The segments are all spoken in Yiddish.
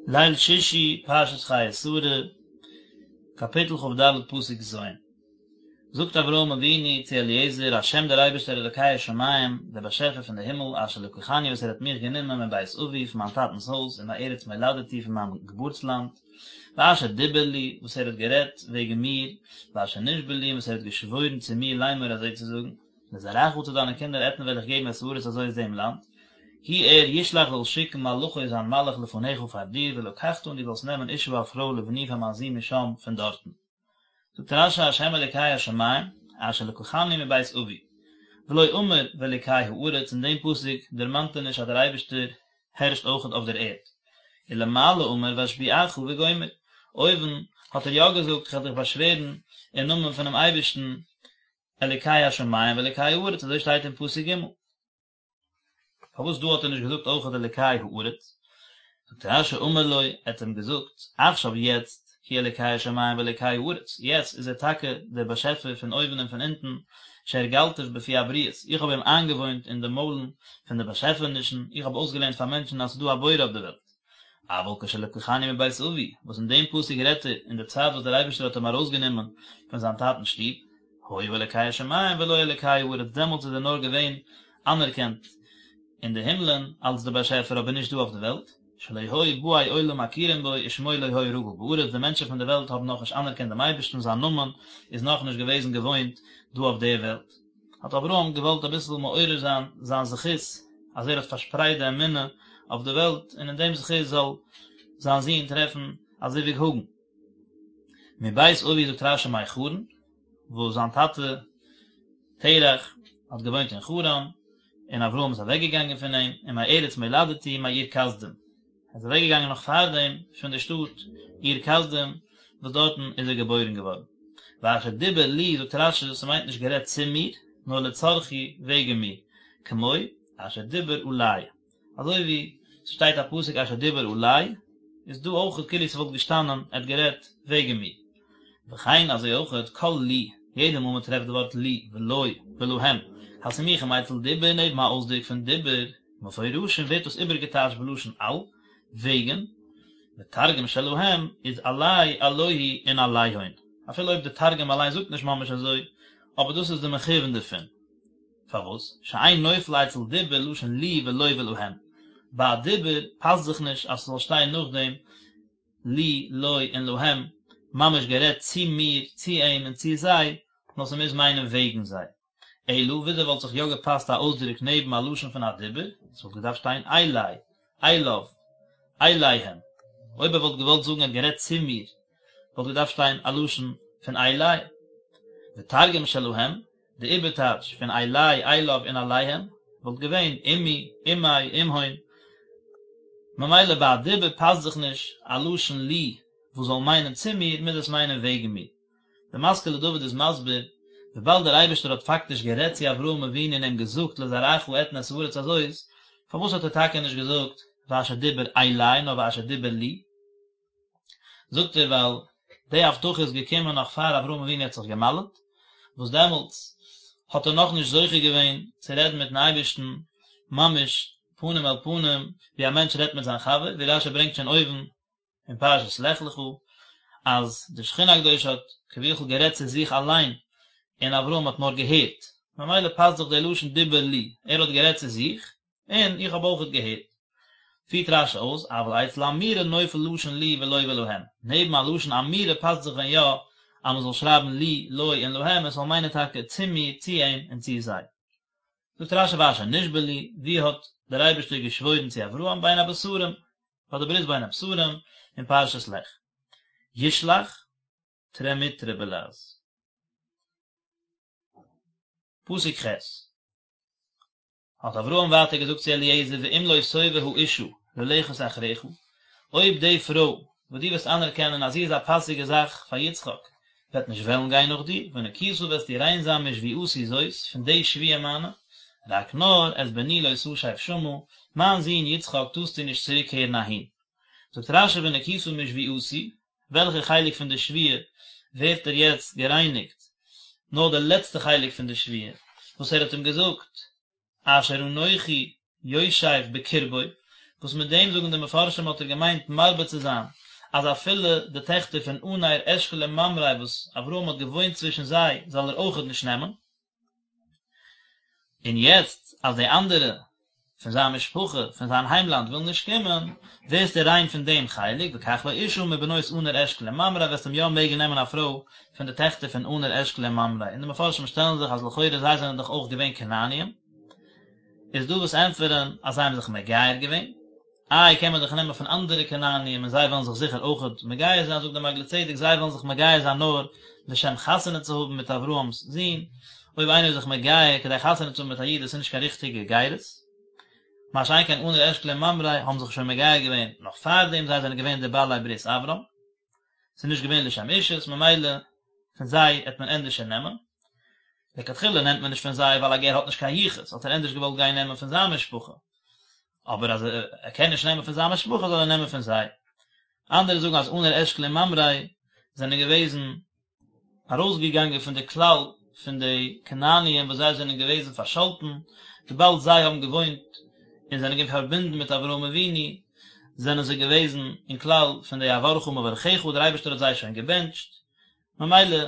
ליל שישי, פרשת חיי שרה, קאפיטל כ"ד פסוק ז'. זאגט אברהם אבינו צו אליעזר, השם דער אייבערשטער אלוקי השמים, דער באשעפער פון די הימל, אשר לקחני וואס ער האט מיך גענומען מבית אבי, פון מיין טאטנ'ס הויז, ומארץ מולדתי, פון מיין געבורטסלאנד, ואשר דיבר לי, וואס ער האט גערעדט וועגן מיר, ואשר נשבע לי, און וואס ער האט געשוואוירן צו מיר לאמור אזוי צו זאגן. לזרעך צו דיינע קינדער אתן וועל איך געבן את הארץ הזאת דעם לאנד, הוא ער ישלח זאל שיקן מלאכו זיין מלאך לפניך פאר דיר ולקחת און דו זאלסט נעמען אשה א פרוי לבני פאר מיין זון משם פון דארטן. זאגט רש"י השם אלוקי השמים אשר לקחני מבית אבי ולא אמר ואלוקי הארץ אין דעם פסוק דערמאנט ער נישט אז דער אייבערשטער הערשט אויכעט אויף דער ערד. ולמעלה אמר ואשביעך וגומר אויבן האט ער יא געזאגט איך וועל דיך באשווערן אין נאמען פונעם אייבערשטן אלוקי השמים ואלוקי הארץ, אזוי שטייט אין פסוק ג'. פארוואס דא האט ער נישט געזאגט אויכעט אלוקי הארץ? זאגט רש"י אמר לו, ער האט אים געזאגט, עכשיו יעצט, הוא אלוקי השמים ואלוקי הארץ, יעצט איז ער טאקע דער באשעפער פון אויבן און פון אונטן, שהרגלתיו בפי הבריות, איך האב אים איינגעוואוינט אין די מוילן פון די באשעפענישן, איך האב אויסגעלערנט פאר מענטשן אז ס'איז דא א בורא אויף די וועלט. אבל כשלקחני מבית אבי, וואס אין דעם פסוק רעדט ער אין די צייט וואס דער אייבערשטער האט אים ארויסגענומען פון זיין טאטנ'ס שטוב, היה אלוקי השמים ולא אלוקי הארץ, דעמאלטס איז ער נאר געווען אנערקענט אין די הימלען אלס דער באשעפער אבער נישט דא אויף די וועלט, שלא היו באי עולם מכירים בו ושמו לא היה רגיל בארץ, די מענטשן פון די וועלט האבן נאכנישט אנערקענט דעם אייבערשטן, זיין נאמען איז נאכנישט געוועזן געוואוינט דא אויף דער וועלט. האט אברהם געוואלט אביסל מעורר זיין זיין זכות אז ער האט פארשפרייט די אמונה אויף די וועלט און אין דעם זכות זאל זיין זון טרעפן א זיווג הגון. מבית אבי זאגט רש"י מחרן, וואס זיין טאטע תרח האט געוואוינט אין חרן, און אברהם איז אוועק געגאנגען פון אים, ומארץ מולדתי מאור כשדים. ער איז אוועק געגאנגען נאך פארדעם פון די שטאט אור כשדים וואס דארטן איז ער געבוירן געווארן. ואשר דיבר לי זאגט רש"י ס'מיינט נישט גערעדט צו מיר נאר לצרכי וועגן מיר, כמו אשר דיבר עלי אזוי ווי ס'שטייט א פסוק אשר דיבר עלי איז דא אויך כאילו ס'וואלט געשטאנען ער האט גערעדט וועגן מיר. וכן אזוי אויכעט כל לי, יעדע מאל מ'טרעפט די ווארט לי ולו ולהם הסמוכים אצל דיבור נעבן א אויסדרוק פון דיבור, מפורשים ווערט דאס איבערגעטייטשט בלשון על, וועגן, ותרגום שלהם איז עלי עלוהי און עליהון, אפילו אויב די תרגום אליין זאגט נישט ממש אזוי, אבער דאס איז די מכוון דערפון. פארוואס? שאין נופל אצל דיבור לשון לי ולו ולהם, ביי א דיבור פאסט זיך נישט אז ס'זאל שטיין נאכדעם לי, לו און להם, ממש גערעדט צו מיר, צו אים און צו זיי, נאר ס'מוז מיינען וועגן זיי. אלא וויאזוי וואלט זיך יא געפאסט א אויסדרוק נעבן א לשון פון א דיבור, עס וואלט געדארפט שטיין אלי, אליו, אליהם. אויב ער וואלט געוואלט זאגן ער האט גערעדט צו מיר, וואלט געדארפט שטיין א לשון פון אלי. ותרגום שלהם, די איבערטייטש פון אלי, אליו און אליהם, וואלט געווען עמי, עמיה, עמהון. ממילא ביי א דיבור פאסט זיך נישט א לשון לי וואס זאל מיינען צו מיר, מוז עס מיינען וועגן מיר. דער משכיל לדוד איז מסביר, וויבאלד דער אייבערשטער האט פאקטיש גערעדט צו אברהם אבינו און אים געזאגט לזרעך אתן את הארץ הזאת, פארוואס האט ער טאקע נישט געזאגט ואשר דיבר אלי נאר ואשר דיבר לי? זאגט ער ווייל די הבטחה איז געקומען נאך פאר אברהם אבינו האט זיך געמל'ט, וואס דעמאלטס האט ער נאכנישט זוכה געווען צו רעדן מיטן אייבערשטן ממש פנים אל פנים ווי א מענטש רעדט מיט זיין חבר, ווי רש"י ברענגט שוין אויבן אין פרשת לך לך אז די שכינה הקדושה האט כביכול גערעדט צו זיך אליין און אברהם האט נאר געהערט, ממילא פאסט זיך דער לשון דיבר לי, ער האט גערעדט צו זיך און איך האב אויכעט געהערט. פירט רש"י אויס, אבל אצל אמירה נופל לשון לי ולו ולהם, נעבן א לשון אמירה פאסט זיך ווען יא אז מען זאל שרייבן לי, לו און להם, עס זאל מיינען טאקע צו מיר, צו אים און צו זיי. זאגט רש"י ואשר נשבע לי, ווי האט דער אייבערשטער געשוואוירן צו אברהם בין הבתרים, ביי די ברית בין הבתרים אין פרשת לך. ישלח, טרמיטרא בלע"ז. פסוק ח'. האט אברהם ווייטער געזאגט צו אליעזר ואם לא תאבה האשה ללכת אחריך, אויב די פרוי וואס דו וועסט אנערקענען אז זי איז א פאסיגע זאך פאר יצחק וועט נישט וועלן גיין נאך דיר, ונקית וועסטו ריין זיין משבועתי זאת, פון די שבועה מיינע, רק נאר את בני לא תשב שמה, מיין זון יצחק טארסטו נישט צוריקקערן אהין. זאגט רש"י ונקית משבועתי, וועלכע חלק פון די שבועה ווערט ער יעצט גערייניגט, נאר די לעצטע חלק פון די שבועה וואס ער האט אים געזאגט, אשר אנכי יושב בקרבו, וואס מיט דעם זאגן די מפרשים האט ער געמיינט מרבה צו זיין אז אפילו די טעכטער פון ענר אשכול און ממרא וואס אברהם האט געוואוינט צווישן זיי זאל ער אויכעט נישט נעמען. און יעצט אז די אנדערע פון זיין משפחה פון זיין היימלאנד ווילן נישט קומען, ווערסטו ריין פון דעם חלק, וקח לו אשה מבנות ענר אשכול וממרא, וועסט אים יא מעגן נעמען א פרוי פון די טעכטער פון ענר אשכול און ממרא, און די מפרשים שטעלן זיך אז לכאורה זיי זענען דאך אויך געווען כנעניים, איז דא וואס ענטפערן אז זיי האבן זיך מגייר געווען, איי קען מען דאך נעמען פון אנדערע כנעניים און זיי וועלן זיך זיכער אויכעט מגייר זיין, זאגט דער מעגלי צדק זיי וועלן זיך מגייר זיין נאר לשם חתונה צו האבן מיט אברהם'ס זון, אויב איינער איז זיך מגייר כדי חתונה צו האבן מיט א איד דאס איז נישט קיין ריכטיגע גירות, מה שאין כן ענר אשכול און ממרא האבן זיך שוין מגייר געווען נאך פארדעם זיי זענען געווען די בעלי ברית אברהם, ס'איז נישט געווען לשם אישות ממילא פון זיי העט מען ענדערשער נעמען. לכתחילה נעמט מען נישט פון זיי ווייל א גר האט נישט קיין יחוס, האט ער ענדערש געוואלט גיין נעמען פון זיין משפחה, אבער אז ער קען נישט נעמען פון זיין משפחה זאל ער נעמען פון זיי. אנדערע זאגן אז ענר אשכול און ממרא זענען געוועזן ארויסגעגאנגען פון די כלל פון די כנעניים וואס זיי זענען געוועזן פארשאלטן, וויבאלד זיי האבן געוואוינט און זענען געווען פארבינדן מיט אברהם אבינו, זענען זיי געוועזן אין כלל פון די אברכה מברכיך, דער אייבערשטער האט זיי שוין געבענטשט, ממילא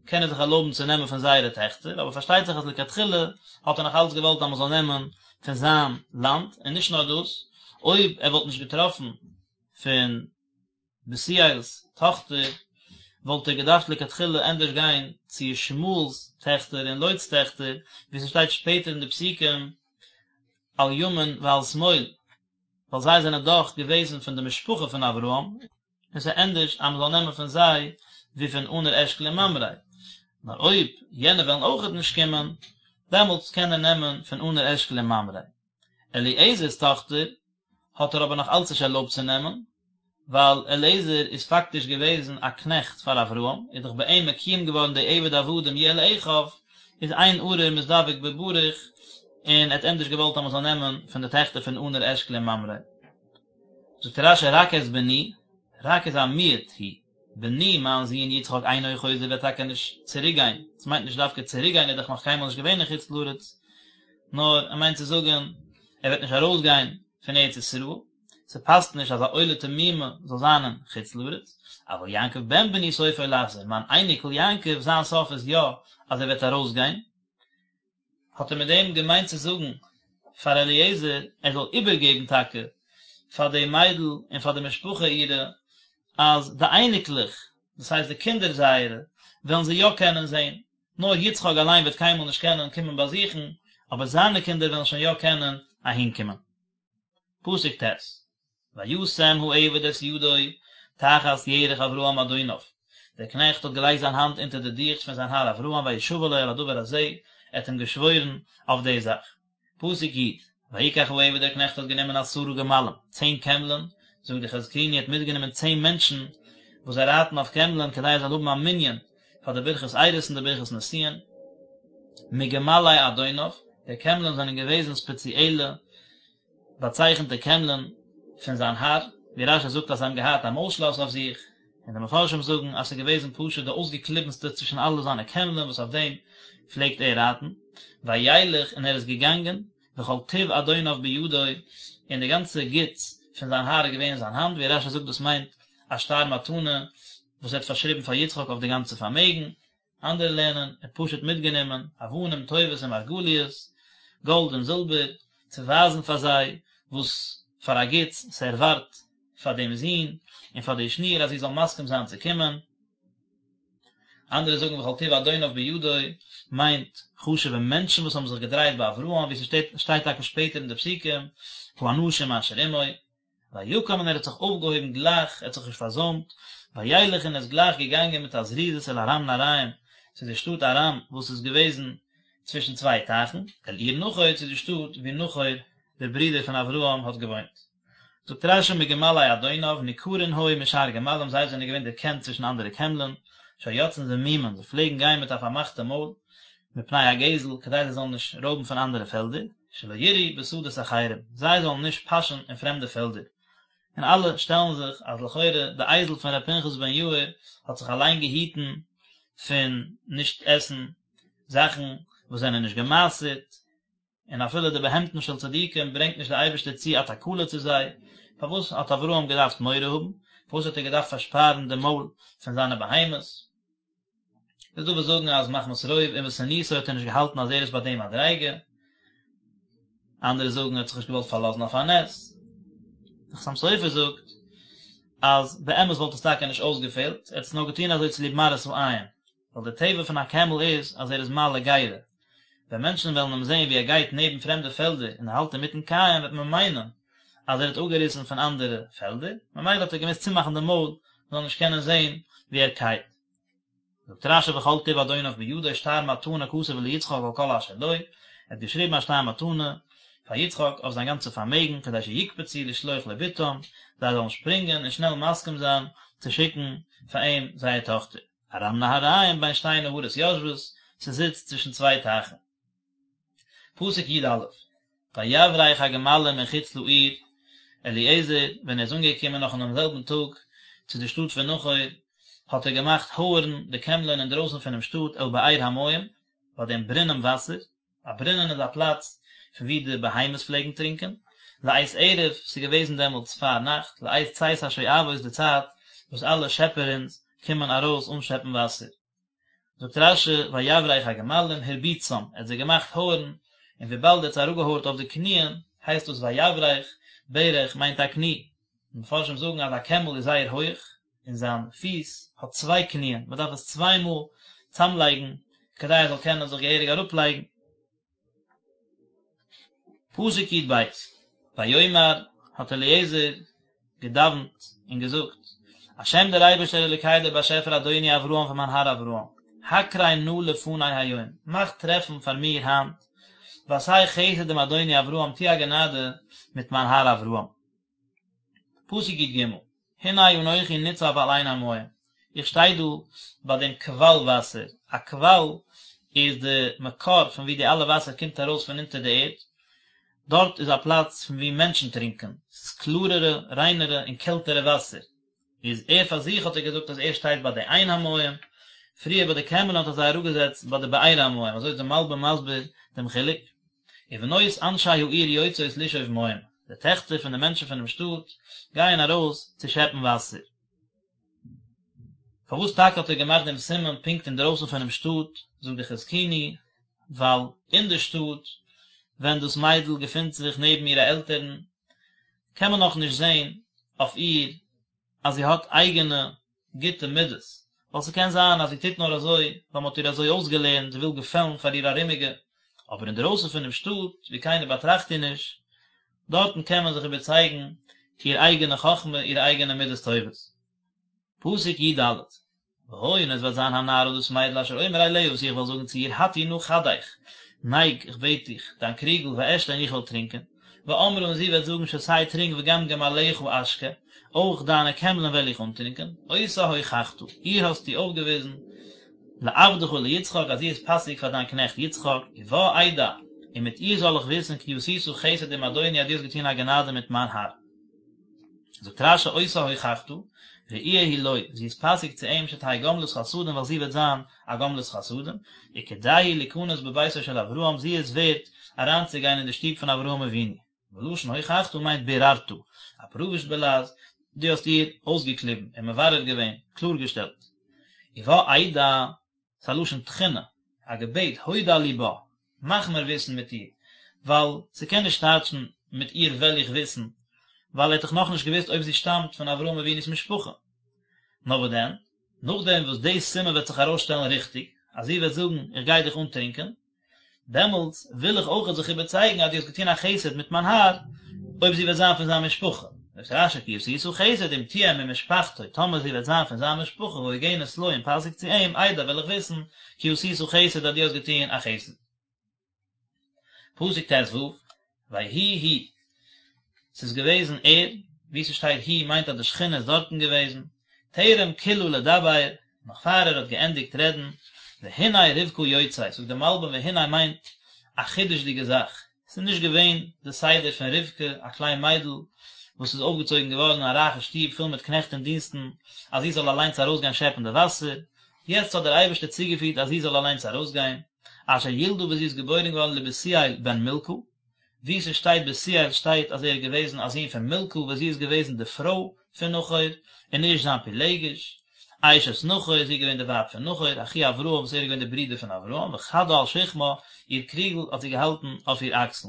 קען ער זיך ערלויבן צו נעמען פון זייערע טעכטער, אבער פארשטייט זיך אז לכתחילה האט ער נאך אלץ געוואלט אז מען זאל נעמען פון זיין לאנד, און נישט נאר דאס, אויב ער וואלט נישט געטראפן פון בתואל'ס טאכטער, וואלט ער געדארפט לכתחילה ענדערש גיין צו ישמעאל'ס טעכטער און לוט'ס טעכטער, ווי ס'שטייט שפעטער אין די פסוקים על ימין ועל שמאל, ווייל זיי זענען דאך געוועזן פון די משפחה פון אברהם, און ס'איז ענדערש אז מ'זאל נעמען פון זיי ווי פון ענר אשכול און ממרא, נאר אויב יענע וועלן אויכעט נישט קומען, דעמאלטס קען ער נעמען פון ענר אשכול און ממרא. אליעזר'ס טאכטער האט ער אבער נאך אלץ נישט ערלויבט צו נעמען, ווייל אליעזר איז פאקטיש געוועזן א קנעכט פאר אברהם, איז דאך ביי אים מקוים געווארן די עבד עבדים יהיה לאחיו, איז אין ארור מזדווג בברוך, און ער האט ענדערש געוואלט אז מ'זאל נעמען פון די טעכטער פון ענר אשכול און ממרא. זאגט רש"י רק את בני, רק איז א מיעוט הוא, בני מיין זון יצחק אינו חוזר וועט טאקע נישט צוריק גיין, עס מיינט נישט דווקא צוריק גיין ער איז דאך נאך קיינמאל נישט געווען אין חוץ לארץ, נאר ער מיינט צו זאגן ער וועט נישט ארויס גיין פון ארץ ישראל, ס'פאסט נישט אז א עולה תמימה זאל זיין אין חוץ לארץ, אבל יעקב בן בני סופו לחזור, מיין אייניקל יעקב זיין סוף איז יא אז ער וועט ארויס גיין, האט ער מיט דעם געמיינט צו זאגן פאר אליעזר ער זאל איבערגעבן טאקע פאר די מיידל און פאר די משפחה אירע אז די אייניקלעך, דאס הייסט די קינדער זייערע, וועלן זיי יא קענען זען, נאר יצחק אליין וועט קיינמאל נישט קענען קומען באזוכן, אבער זיינע קינדער וועלן שוין יא קענען אהינקומען. פסוק ט', וישם העבד את ידו תחת ירך אברהם אדוניו, דער קנעכט האט געלייגט זיין האנט אונטער די דיכט פון זיין האר אברהם וישבע לו על הדבר הזה, ער האט אים געשוואוירן אויף די זאך. פסוק י', ויקח העבד דער קנעכט האט גענומען עשרה גמלים, צען קעמלען, זאגט די חזקוני ער האט מיטגענומען צען מענטשן וואס זיי רייטן אויף קעמלען כדי ער זאל האבן א מנין פאר די ברכת אירוסין און די ברכת נישואין, מגמלי אדוניו, די קעמלען זענען געוועזן ספעציעלע באצייכנטע קעמלען פון זיין האר, ווי רש"י זאגט אז זיי האבן געהאט א מויל-שלאס אויף זיך, און די מפרשים זאגן אז ס'איז געוועזן פשוט די אויסגעקליבנסטע צווישן אלע זיינע קעמלען וואס אויף דעם פלעגט ער רייטן, וילך און ער איז געגאנגען, וכל טוב אדוניו בידו, און די גאנצע גוטס פון זיין האר איז געווען אין זיין האנט, ווי רש"י זאגט דאס מיינט א שטר מתנה וואס ער האט פארשריבן פאר יצחק אויף די גאנצע פארמעגן, אנדערע לערנען, ער האט פשוט מיטגענומען אבנים טובות און מרגליות, גאלד און זילבער, צו ווייזן פאר זיי וואס פאר א גוטס ס'ערווארט פאר דעם זון און פאר די שניר אז זי זאל מסכים זיין צו קומען. אנדערע זאגן וכל טוב אדוניו בידו מיינט חשוב'ע מענטשן וואס האבן זיך געדרייט ביי אברהם, ווי ס'שטייט טאקע שפעטער אין די פסוקים, האנשים אשר עמו. ויקם און ער האט זיך אויפגעהויבן גלייך, ער האט זיך נישט פארזוימט, וילך און איז גלייך געגאנגען מיט א זריזות אל ארם נהריים, צו די שטאט ארם וואס איז געוועזן צווישן צוויי טייכן, אל עיר נחור צו די שטאט וואו נחור דער ברודער פון אברהם האט געוואוינט. זאגט רש"י מגמלי אדוניו, ניכרין היו משאר גמלים, זיי זענען געווען דערקענט צווישן אנדערע קעמלען, שהיו יוצאין זמומין, זיי פלעגן גיין מיט א פארמאכטע מויל, מפני הגזל, כדי זיי זאלן נישט רויבן פון אנדערע פעלדער. שלא ירעו בשדות אחרים, זיי זאלן נישט פאשען אין פרעמדע פעלדער. און אלע שטעלן זיך אז לכאורה די אייזל פון ר' פנחס בן יאיר האט זיך אליין געהיטן פון נישט עסן זאכן וואס זענען נישט גע'מעשר'ט. און אפילו די בהמתן של צדיקים ברענגט נישט דער אייבערשטער צו א תקלה צו זיי, פארוואס האט אברהם געדארפט מורא האבן? פארוואס האט ער געדארפט פארשפארן די מויל פון זיינע בהמות? איז דא וואס זאגן אז מחמת רוב ענוותנותו האט ער נישט געהאלטן אז ער איז ביי די מדריגה, אנדערע זאגן ער האט זיך נישט געוואלט פארלאזן אויף א נס. דער חתם סופר זאגט אז באמת וואלט עס טאקע נישט אויסגעפעלט, ער האט עס נאר געטון אזוי צוליב מראית העין, ווייל די טבע פון א קעמל איז אז ער איז מעלה גרה, ווען מענטשן וועלן אים זען ווי ער גייט נעבן פרעמדע פעלדער און ער האלט אינמיטן קייען וועט מען מיינען אז ער האט אפגעריסן פון אנדערע פעלדער, ממילא האט ער געמוזט צומאכן די מויל מען זאל נישט קענען זען ווי ער קייט. זאגט רש"י וכל טוב אדוניו בידו שטר מתנה כתב ליצחק על כל אשר לו, ער האט געשריבן א שטר מתנה פאר יצחק אויף זיין גאנצע פארמעגן כדי שיקפצו לשלוח לו בתם, זיי זאלן שפרינגען און שנעל מסכים זיין צו שיקן פאר אים זייער טאכטער. ארם נהריים בין שתי נהרות יושבת, ס'זיצט צווישן צוויי טייכן. פסוק י"א, ויברך הגמלים מחוץ לעיר, אליעזר, ווען ער איז אנגעקומען נאך אינעם זעלבן טאג צו די שטאט פון נחור, האט ער געמאכט הויערן די קעמלען אינדרויסן פונעם שטאט אל באר המים, ביי דעם ברונעם וואסער, א ברונען איז א פלאץ פון וואו די בהמות פלעגן טרינקען, לעת ערב, ס'איז געוועזן דעמאלטס פאר נאכט, לעת צאת השואבות די צייט וואס אלע שעפערינס קומען ארויס אנשעפן וואסער. זאגט רש"י ויברך הגמלים הרביצם, ער האט זיי געמאכט הויערן, און וויבאלד ער האט זיי אראפגעהויערט אויף די קניען, הייסט דאס ויברך, ברך מיינט א קני. די מפרשים זאגן אז א קעמל איז זייער הויעך, און זיין פיס האט צוויי קניען, מען דארף עס צוויי מאל צאמלייגן כדי ער זאל קענען זיך געהעריג אראפלייגן. פסוק י"ב, ויאמר, האט אליעזר געדאווענט און געזאגט, השם דער אייבערשטער אלוקי דער באשעפער אדוני אברהם פון מיין האר אברהם, הקרה נא לפני היום, מאך טרעפן פאר מיר היינט, ועשה חסד עם אדוני אברהם, טו א גענאדע מיט מיין האר אברהם. פסוק י"ג, הנה אנכי ניצב על עין המים, איך שטיי דא ביי דעם קוואל וואסער, א קוואל איז די מקור פון וואו די אלע וואסער קומט ארויס פון אונטער די ערד, דארט איז א פלאץ פון וואו מענטשן טרינקען, ס'איז קלארערע, ריינערע און קעלטערע וואסער, איז ער פאר זיך האט ער געזאגט אז ער שטייט ביי די עין המים, פריער ביי די קעמלען האט ער זיי אראפגעזעצט ביי די באר המים, אזוי איז די מלבי"ם מסביר דעם חילוק. ובנות אנשי העיר יוצאות לשאוב מים, די טעכטער פון די מענטשן פונעם שטאט גייען ארויס צו שעפן וואסער. פארוואס טאקע האט ער געמאכט דעם סימן פונקט אינדרויסן פונעם שטאט, זאגט די חזקוני, ווייל אין די שטאט, ווען דאס מיידל געפינט זיך נעבן אירע עלטערן, קען מען נאכנישט זען אויף איר אז זי האט אייגענע גוטע מידות, ווייל ס'קען זיין אז זי טוט נאר אזוי ווייל מ'האט איר אזוי אויסגעלערנט, זי וויל געפעלן פאר איר ארומיגע, אבער אינדערויסן פונעם שטאט, וואו קיינער באטראכט איר נישט, דארטן קען מען זיך איבערצייגן איר אייגענע חכמה, אירע אייגענע מידות טובות. פסוק י"ד, והיה און עס וועט זיין הנערה דאס מיידל אשר אומר אליה וואס איך וועל זאגן צו איר הטי נא כדך, נייג, איך בעט דיך, דיין קריגל, ואשתה און איך וועל טרינקען, ואמרה און זי וועט זאגן שתה טרינק וגם גמליך אשקה, אויך דיינע קעמלען וועל איך אנטרינקען, אותה הוכחת, איר האסטו אויפגעוויזן, לעבדך ליצחק אז זי איז פאסיג פאר דיין קנעכט יצחק, ובה אדע, און מיט איר זאל איך וויסן כי עשית חסד עם אדוני אז דו האסט געטון א גענאדע מיט מיין האר. זאגט רש"י אותה הוכחת, ראויה היא לו, זי איז פאסיג צו אים שתהא גומלת חסדים ווייל זי וועט זיין א גומלת חסדים, וכדאי היא ליכנס בביתו של אברהם זי איז ווערט אריינצוגיין אין די שטוב פון אברהם אבינו, ולשון הוכחת מיינט ביררת, א פרוויש בלע"ז, דו האסט איר אויסגעקליבן און מברר געווען, קלארגעשטעלט. ובה אדע, ס'איז א לשון תחינה, א געבעט, הודע לי בה, מאך מיר וויסן מיט איר, ווייל ס'קען נישט טייטשן מיט איר וועל איך וויסן, ווייל ער האט דאך נאכנישט געוואוסט אויב זי שטאמט פון אברהם אבינו'ס משפחה. נאר וואס דען, נאכדעם וואס די סימן וועט זיך ארויסשטעלן ריכטיג, אז זי וועט זאגן איך גיי דיך אנטרינקען, דעמאלטס וויל איך אויכעט זיך איבערצייגן אז דו האסט געטון א חסד מיט מיין האר, אויב זי וועט זיין פון זיין משפחה. זאגט רש"י כי עשית חסד אם תהיה ממשפחתו, טאמער זי וועט זיין פון זיין משפחה והוגנת לו און פאסיג צו אים, אדע וועל איך וויסן כי עשית חסד אז דו האסט געטון א חסד. פסוק ט"ו, ויהי הוא, ס'איז געוועזן ער, וואו ס'שטייט הוא מיינט אז די שכינה איז דארטן געוועזן, טרם כלה לדבר, נאך פאר ער האט געענדיגט רעדן, והנה רבקה יוצאת, זאגט די מלבי"ם והנה מיינט א חידוש'דיגע זאך, ס'איז נישט געווען די סדר פון רבקה, א קליין מיידל וואס איז אויפגעצויגן געווארן אין א רייכע שטוב פול מיט קנעכט און דינסטן, אז זי זאל אליינס ארויסגיין שעפן די וואסער, יעצט האט דער אייבערשטער צוגעפירט אז זי זאל אליינס ארויסגיין. אשר ילדה וואס זי איז געבוירן געווארן לבתואל בן מלכה, וואו ס'שטייט בתואל שטייט אז ער איז געוועזן א זון פון מלכה וואס זי איז געוועזן די פרוי פון נחור, און נישט זיין פילגש, אשת נחור, זי איז געווען די ווייב פון נחור, אחי אברהם וואס ער איז געווען די ברודער פון אברהם, וכדה על שכמה, איר קריגל האט זי געהאלטן אויף איר אקסל.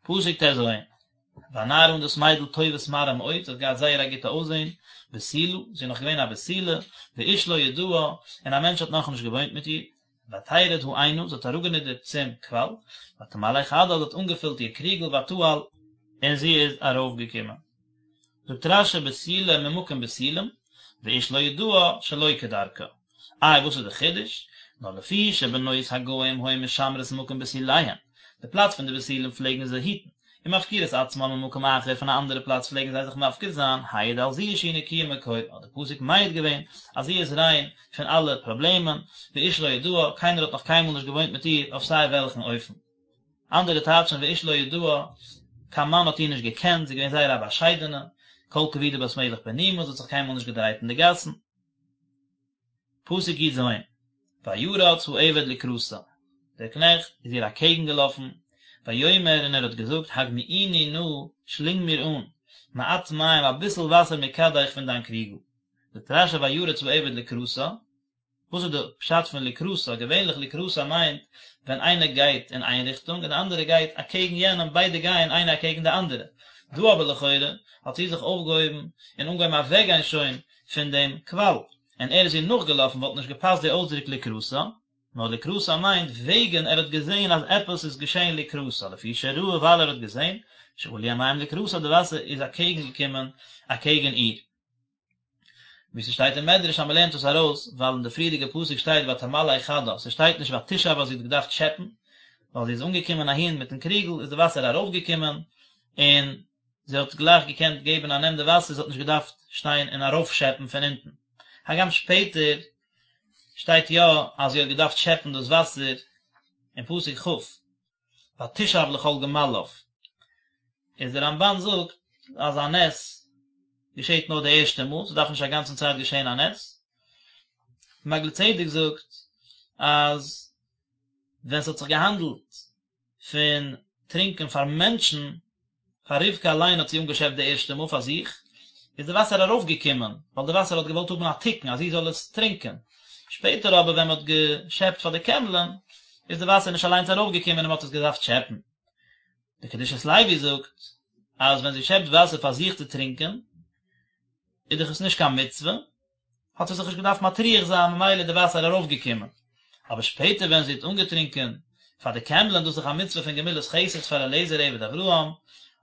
פסוק ט"ז, והנערה און דאס מיידל טובת מראה מאוד, זי האט געהאט זייער א גוטע אויסזען, בתולה, זי איז נאך געווען א בתולה, ואיש לא ידעה, און א מענטש האט נאכנישט געוואוינט מיט איר, ותרד העינה, זי האט אראפגענידערט צום קוואל, ותמלא כדה, זי האט אנגעפילט איר קריגל, ותעל, און זי איז ארויפגעקומען. זאגט רש"י בתולה ממקום בתולים, ואיש לא ידעה שלא כדרכה. איי וואס איז די חידוש? נאר לפי שבנות הגוים היו משמרות מקום בתוליהן, די פלאץ פון די בתולים פלעגן זיי היטן, ומפקירות עצמן ממקום אחר פון א אנדערע פלאץ פלעגן זיי זיך מפקיר זיין, העיד על זו שהיא נקיה מכל, האט די פסוק מעיד געווען אז זי איז ריין פון אלע פראבלעמען, ואיש לא ידעה, קיינער האט נאך קיינמאל נישט געוואוינט מיט איר אויף סיי וועלכן אופן. אנדערע טייטשן ואיש לא ידעה, קיין מאן האט איר נישט געקענט, זי איז געווען זייער א באשיידענע, כל כבודה בת מלך פנימה, זי האט זיך קיינמאל נישט געדרייט אין די גאסן. פסוק י"ז, וירץ העבד לקראתה, דער קנעכט איז איר אקעגן געלאפן, ויאמר און ער האט געזאגט הגמיאיני נא, שלינג מיר אן, מעט מים אביסל וואסער מכדך פון דיין קריגל. זאגט רש"י וירץ העבד לקראתה, וואס איז די פשט פון לקראתה? געווענליך לקראתה מיינט ווען איינער גייט אין איין ריכטונג און די אנדערע גייט אקעגן יענעם, ביידע גייען איינער אקעגן די אנדערע. דא אבער לכאורה האט זי זיך אויפגעהויבן און אנגעהויבן אוועקגיין שוין פון דעם קוואל, און ער איז איר נאכגעלאפן, וואלט נישט געפאסט די אויסדרוק לקראתה, נאר לקראתה מיינט וועגן ער האט געזען אז עפעס איז געשען לקראתה, לפי שראה ווייל ער האט געזען, שעלו המים לקראתה די וואסער איז אקעגן געקומען אקעגן איר. ווי ס'שטייט אין מדרש אז מ'לערנט עס ארויס ווייל אין די פריערדיגע פסוק שטייט ותמלא כדה, ס'שטייט נישט ותשאב אז זי האט געדארפט שעפן, ווייל זי איז אנגעקומען אהין מיטן קריגל איז די וואסער ארויפגעקומען און זי האט גלייך געקענט געבן א נעם די וואסער, זי האט נישט געדארפט שטיין און ארויפשעפן פון אונטן. הגם שפעטער שטייט יא אז זי האט געדארפט שעפן דאס וואסער אין פסוק כ', ותשאב לכל גמליו, איז דער רמב"ן זאגט אז א נס געשעט נאר די ערשטע מאל, ס'דארף נישט א גאנצן צייט געשען א נס. מעגלי צדק זאגט אז ווען ס'האט זיך געהאנדלט פון טרינקען פאר מענטשן, פאר רבקה אליין האט זי אנגעשעפט די ערשטע מאל פאר זיך, איז די וואסער ארויפגעקומען, ווייל די וואסער האט געוואלט האבן א תיקון אז זי זאל עס טרינקען. שפעטער אבער ווען מען האט געשעפט פאר די קעמלען, איז די וואסער נישט אליינס ארויפגעקומען און מען האט עס געדארפט שעפן. די קדושת לוי זאגט אז ווען זי שעפט וואסער פאר זיך צו טרינקען, איז דאך עס נישט קיין מצוה, האט זי זיך נישט געדארפט מטריח זיין ממילא איז די וואסער ארויפגעקומען, אבער שפעטער ווען זי האט אנגעטרינקען פאר די קעמלען דאס איז דאך א מצוה פון גמילת חסד פאר אליעזר עבד אברהם,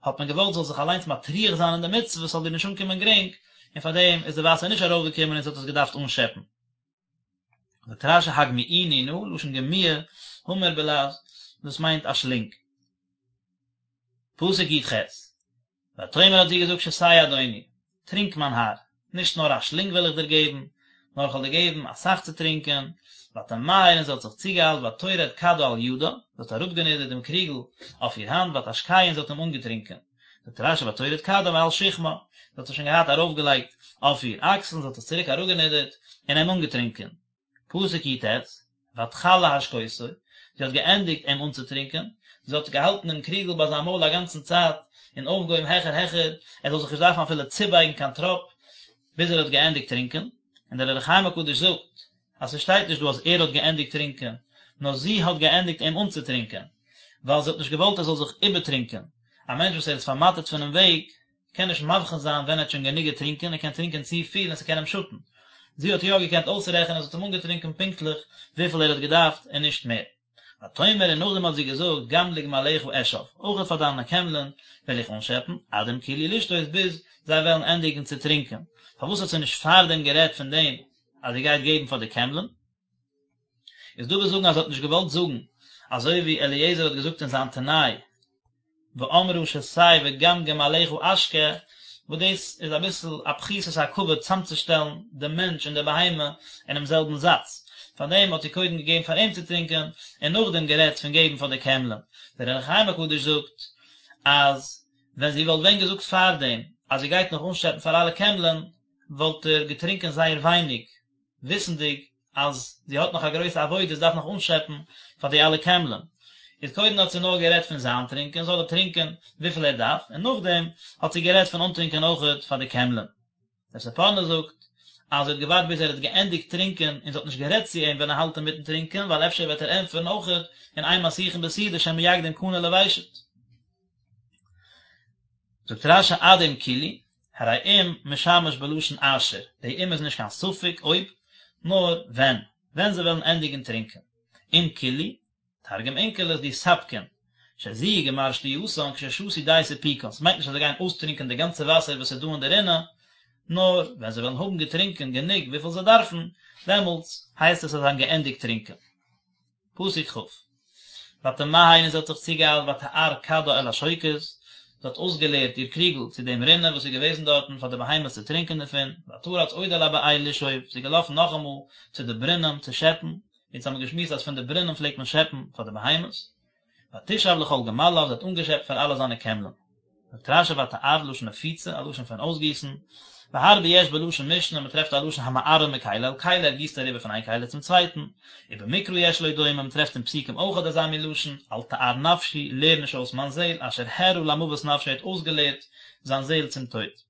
האט מען געוואלט זי זאל זיך אליינס מטריח זיין אין די מצוה ס'זאל איר נישט אנקומען גרינג, און פאר דעם איז די וואסער נישט ארויפגעקומען און זי האט עס געדארפט אנשעפן. זאגט רש"י הגמיאיני נא, לשון גמיעה, המר בלע"ז, דאס מיינט א שלינג. פסוק י"ח, ותאמר האט זי געזאגט שתה אדוני, טרינק מיין האר, נישט נאר א שלינג וועל איך דיר געבן, נאר איך וועל דיר געבן אסאך צו טרינקען, ותמהר און זי האט זיך צוגעאיילט ותרד כדה על ידה, זי האט אראפגענידערט דעם קריגל אויף איר האנט, ותשקהו און זי האט אים אנגעטרינקען. זאגט רש"י ותורד כדה מעל שכמה, זי האט עס שוין געהאט ארויפגעלייגט אויף איר אקסל, זי האט עס צוריק אראפגענידערט און אים אנגעטרינקען. פסוק י"ט, ותכל להשקותו, זי האט געענדיגט אים אנצוטרינקען, זי האט געהאלטן דעם קריגל ביי זיין מויל א גאנצן צייט, און אויפגעהויבן העכער העכער, ער זאל זיך נישט דארפן אפילו צובייגן קיין טראפ, ביז ער האט געענדיגט טרינקען, און דער אור החיים הקדוש זאגט, אז ס'שטייט נישט דא אז ער האט געענדיגט טרינקען, נאר זי האט געענדיגט אים אנצוטרינקען, ווייל זי האט נישט געוואלט ער זאל זיך איבערטרינקען, א מענטש וואס ער איז פארמאטערט פונעם וועג, קען נישט מבחין זיין ווען ער האט שוין גענוג געטרינקען, ער קען טרינקען צופיל און ס'קען אים שאטן. זי האט יא געקענט אויסרעכענען, זי האט אים אנגעטרינקען פונקטליך וויפיל ער האט געדארפט און נישט מער. ותאמר און נאכדעם האט זי געזאגט גם לגמליך אשאב, אויך פאר דיינע קעמלען וועל איך אנשעפן, עד אם כלו לשתות ביז זיי וועלן ענדיגן צו טרינקען. פארוואס האט זי נישט פארדעם גערעדט פון דעם אז זי גייט געבן פאר די קעמלען? איז דא וואס זאגן אז זי האט נישט געוואלט זאגן אזוי ווי אליעזר האט געזאגט אין זיין תנאי ואמרה שתה וגם גמליך אשקה, וואס דאס איז אביסל א פחיתות הכבוד צאמצושטעלן די מענטש און די בהמה אינעם זעלבן זאץ, פארדעם האט זי קודם געגעבן פאר אים צו טרינקען און נאכדעם גערעדט פון געבן פאר די קעמלען. דער אור החיים הקדוש זאגט אז ווען זי וואלט ווען געזאגט פארדעם אז זי גייט נאך אנשעפן פאר אלע קעמלען וואלט ער געטרינקען זייער ווייניג, וויסנדיג. אז זי האט נאך א גרויסע עבודה, זי דארף נאך אנשעפן פאר די אלע קעמלען. איז קודם האט זי נאר גערעדט פון זיין טרינקען, זאל ער טרינקען וויפיל ער דארף, און נאכדעם האט זי גערעדט פון אנטרינקען אויכעט פאר די קעמלען. דער ספורנו זאגט אז זי האט געווארט ביז ער האט געענדיגט טרינקען און זי האט נישט גערעדט צו אים ווען ער האלט אינמיטן טרינקען ווייל אפשר וועט ער ענטפערן אויכעט און אין מסיחין בסעודה שמא יקדים קנה לוושט. זאגט רש"י עד אם כלו, הרי אם משמש בלשון אשר, די אם איז נישט קיין ספק אויב, נאר ווען, ווען זיי וועלן ענדיגן טרינקען. אם כלו, תרגום אונקלוס דיספקון, שזו גמר שתייתן כששתו די סיפוקן, ס'מיינט נישט אז זיי גייען אויסטרינקען די גאנצע וואסער וואס איז דא אין די רינע, נאר ווען זיי וועלן האבן געטרינקען גענוג וויפיל זיי דארפן, דעמאלטס הייסט עס אז זיי האבן געענדיגט טרינקען. פסוק כ'. ותמהר און זי האט זיך צוגעאיילט ותער כדה אל השוקת, זי האט אויסגעלערט איר קריגל צו דעם רינע וואס איז געוועזן דארטן פאר די בהמות צו טרינקען דערפון, ותרץ עוד אל הבאר לשאוב, זי איז געלאפן נאכאמאל צו די ברונעם צו שעפן, אונז האבן געשמועסט אז פון די ברונעם פלעגט מען שעפן פאר די בהמות, ותשאב לכל גמליו, זי האט אנגעשעפט פאר אלע זיינע קעמלען. זאגט רש"י ותער לשון נפיצה, א לשון פון אויסגיסן, והרבה יש בלשון משנה, מען טרעפט א לשון המערה מכלי אל כלי, ער גיסט אריבער פון איין כלי צום צווייטן, ובמקרא יש לו דומה, מען טרעפט אין פסוקים אויך אזא מין לשון, אל תער נפשי, לער נישט אויס מיין זעל, אשר הערה למוות נפשו ער האט אויסגעלערט זיין זעל צום טויט.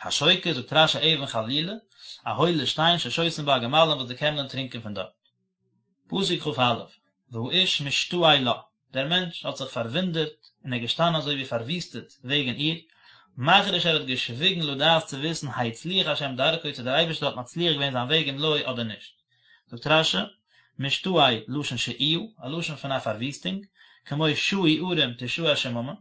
השוקת, זאגט רש"י אבן חלולה, א הוילע שטיין ששותין בה הגמלים וואס די קעמלען טרינקען פון דארט. פסוק כ"א, והאיש משתאה לה, דער מענטש האט זיך פארוואונדערט און ער איז געשטאנען אזוי ווי פארוויסטעט וועגן איר, מחריש ער האט געשוויגן לדעת צו וויסן הצליח השם דרכו צו דער אייבערשטער האט מצליח געווען זיין וועג אם לא אדער נישט. זאגט רש"י, משתאה, לשון שאיה, א לשון פון א פארוויסטונג, כמו שאו ערים תשאה שממה,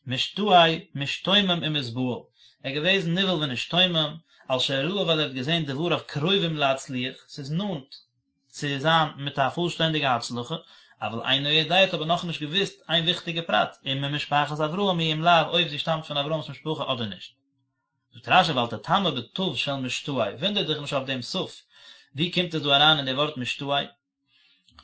משתאה, משתומם ומתבהל, ער איז געוועזן נבהל ונשתומם, על שראה ווייל ער האט געזען דבריו קרובים להצליח, ס'איז נאנט צו זיין מיט א פולשטענדיגע הצלחה, אבל אינו יודע האט אבער נאכנישט געוואוסט איין וויכטיגע פרט, אם ממשפחת אברהם היא אם לאו אויב זי שטאמט פון אברהם'ס משפחה אדער נישט. זאגט רש"י ואל תתמה בתיו של משתאה, וואונדער דיך נישט אויף דעם תיו, ווי קומט עס דא אריין אין די ווארט משתאה?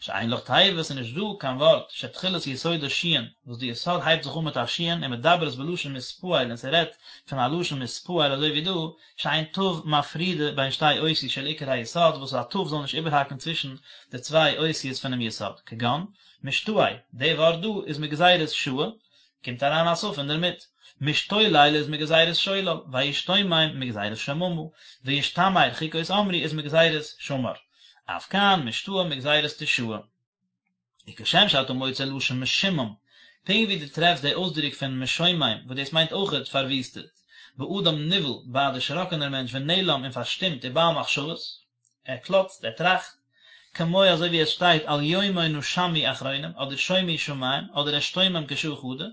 שאין לך תיבה, ס'איז נישט דא קיין ווארט שתחילת יסודה שין, וואס די יסוד הייבט זיך אן מיט א שין ומדברת בלשון מתפעל און ס'רעדט פון א לשון מתפעל אזוי ווי דא, שאין תיו מפרידה בין שתי אותיות של עיקר היסוד וואס א תיו זאל נישט איבערהאקן צווישן די צוויי אותיות פונעם יסוד, כגון, משתאה, די ווארט דא איז מגזירת שאה, קומט אריין א תיו אינדערמיט. משתולל איז מגזירת שולל, וישתומם מגזירת שממה, וישתמר חוקות אמרו איז מגזירת שמר. אף כאן משתאה מגזירת תשאה. וכשם שאתה מוצא לשון משומם, פונקט ווי דו טרעפסט די אויסדרוק פון משומם וואס דאס מיינט אויכעט פארוויסטעט, באדם נבהל ביי א דערשראקענער מענטש ונעלם און פארשטומט ובעל מחשבות, ער קלאצט, ער טראכט, כמו אזוי ווי עס שטייט אל יומו נשמו אחרונים, אדער שומו שמים, אדער אשתומם כשעה חדא,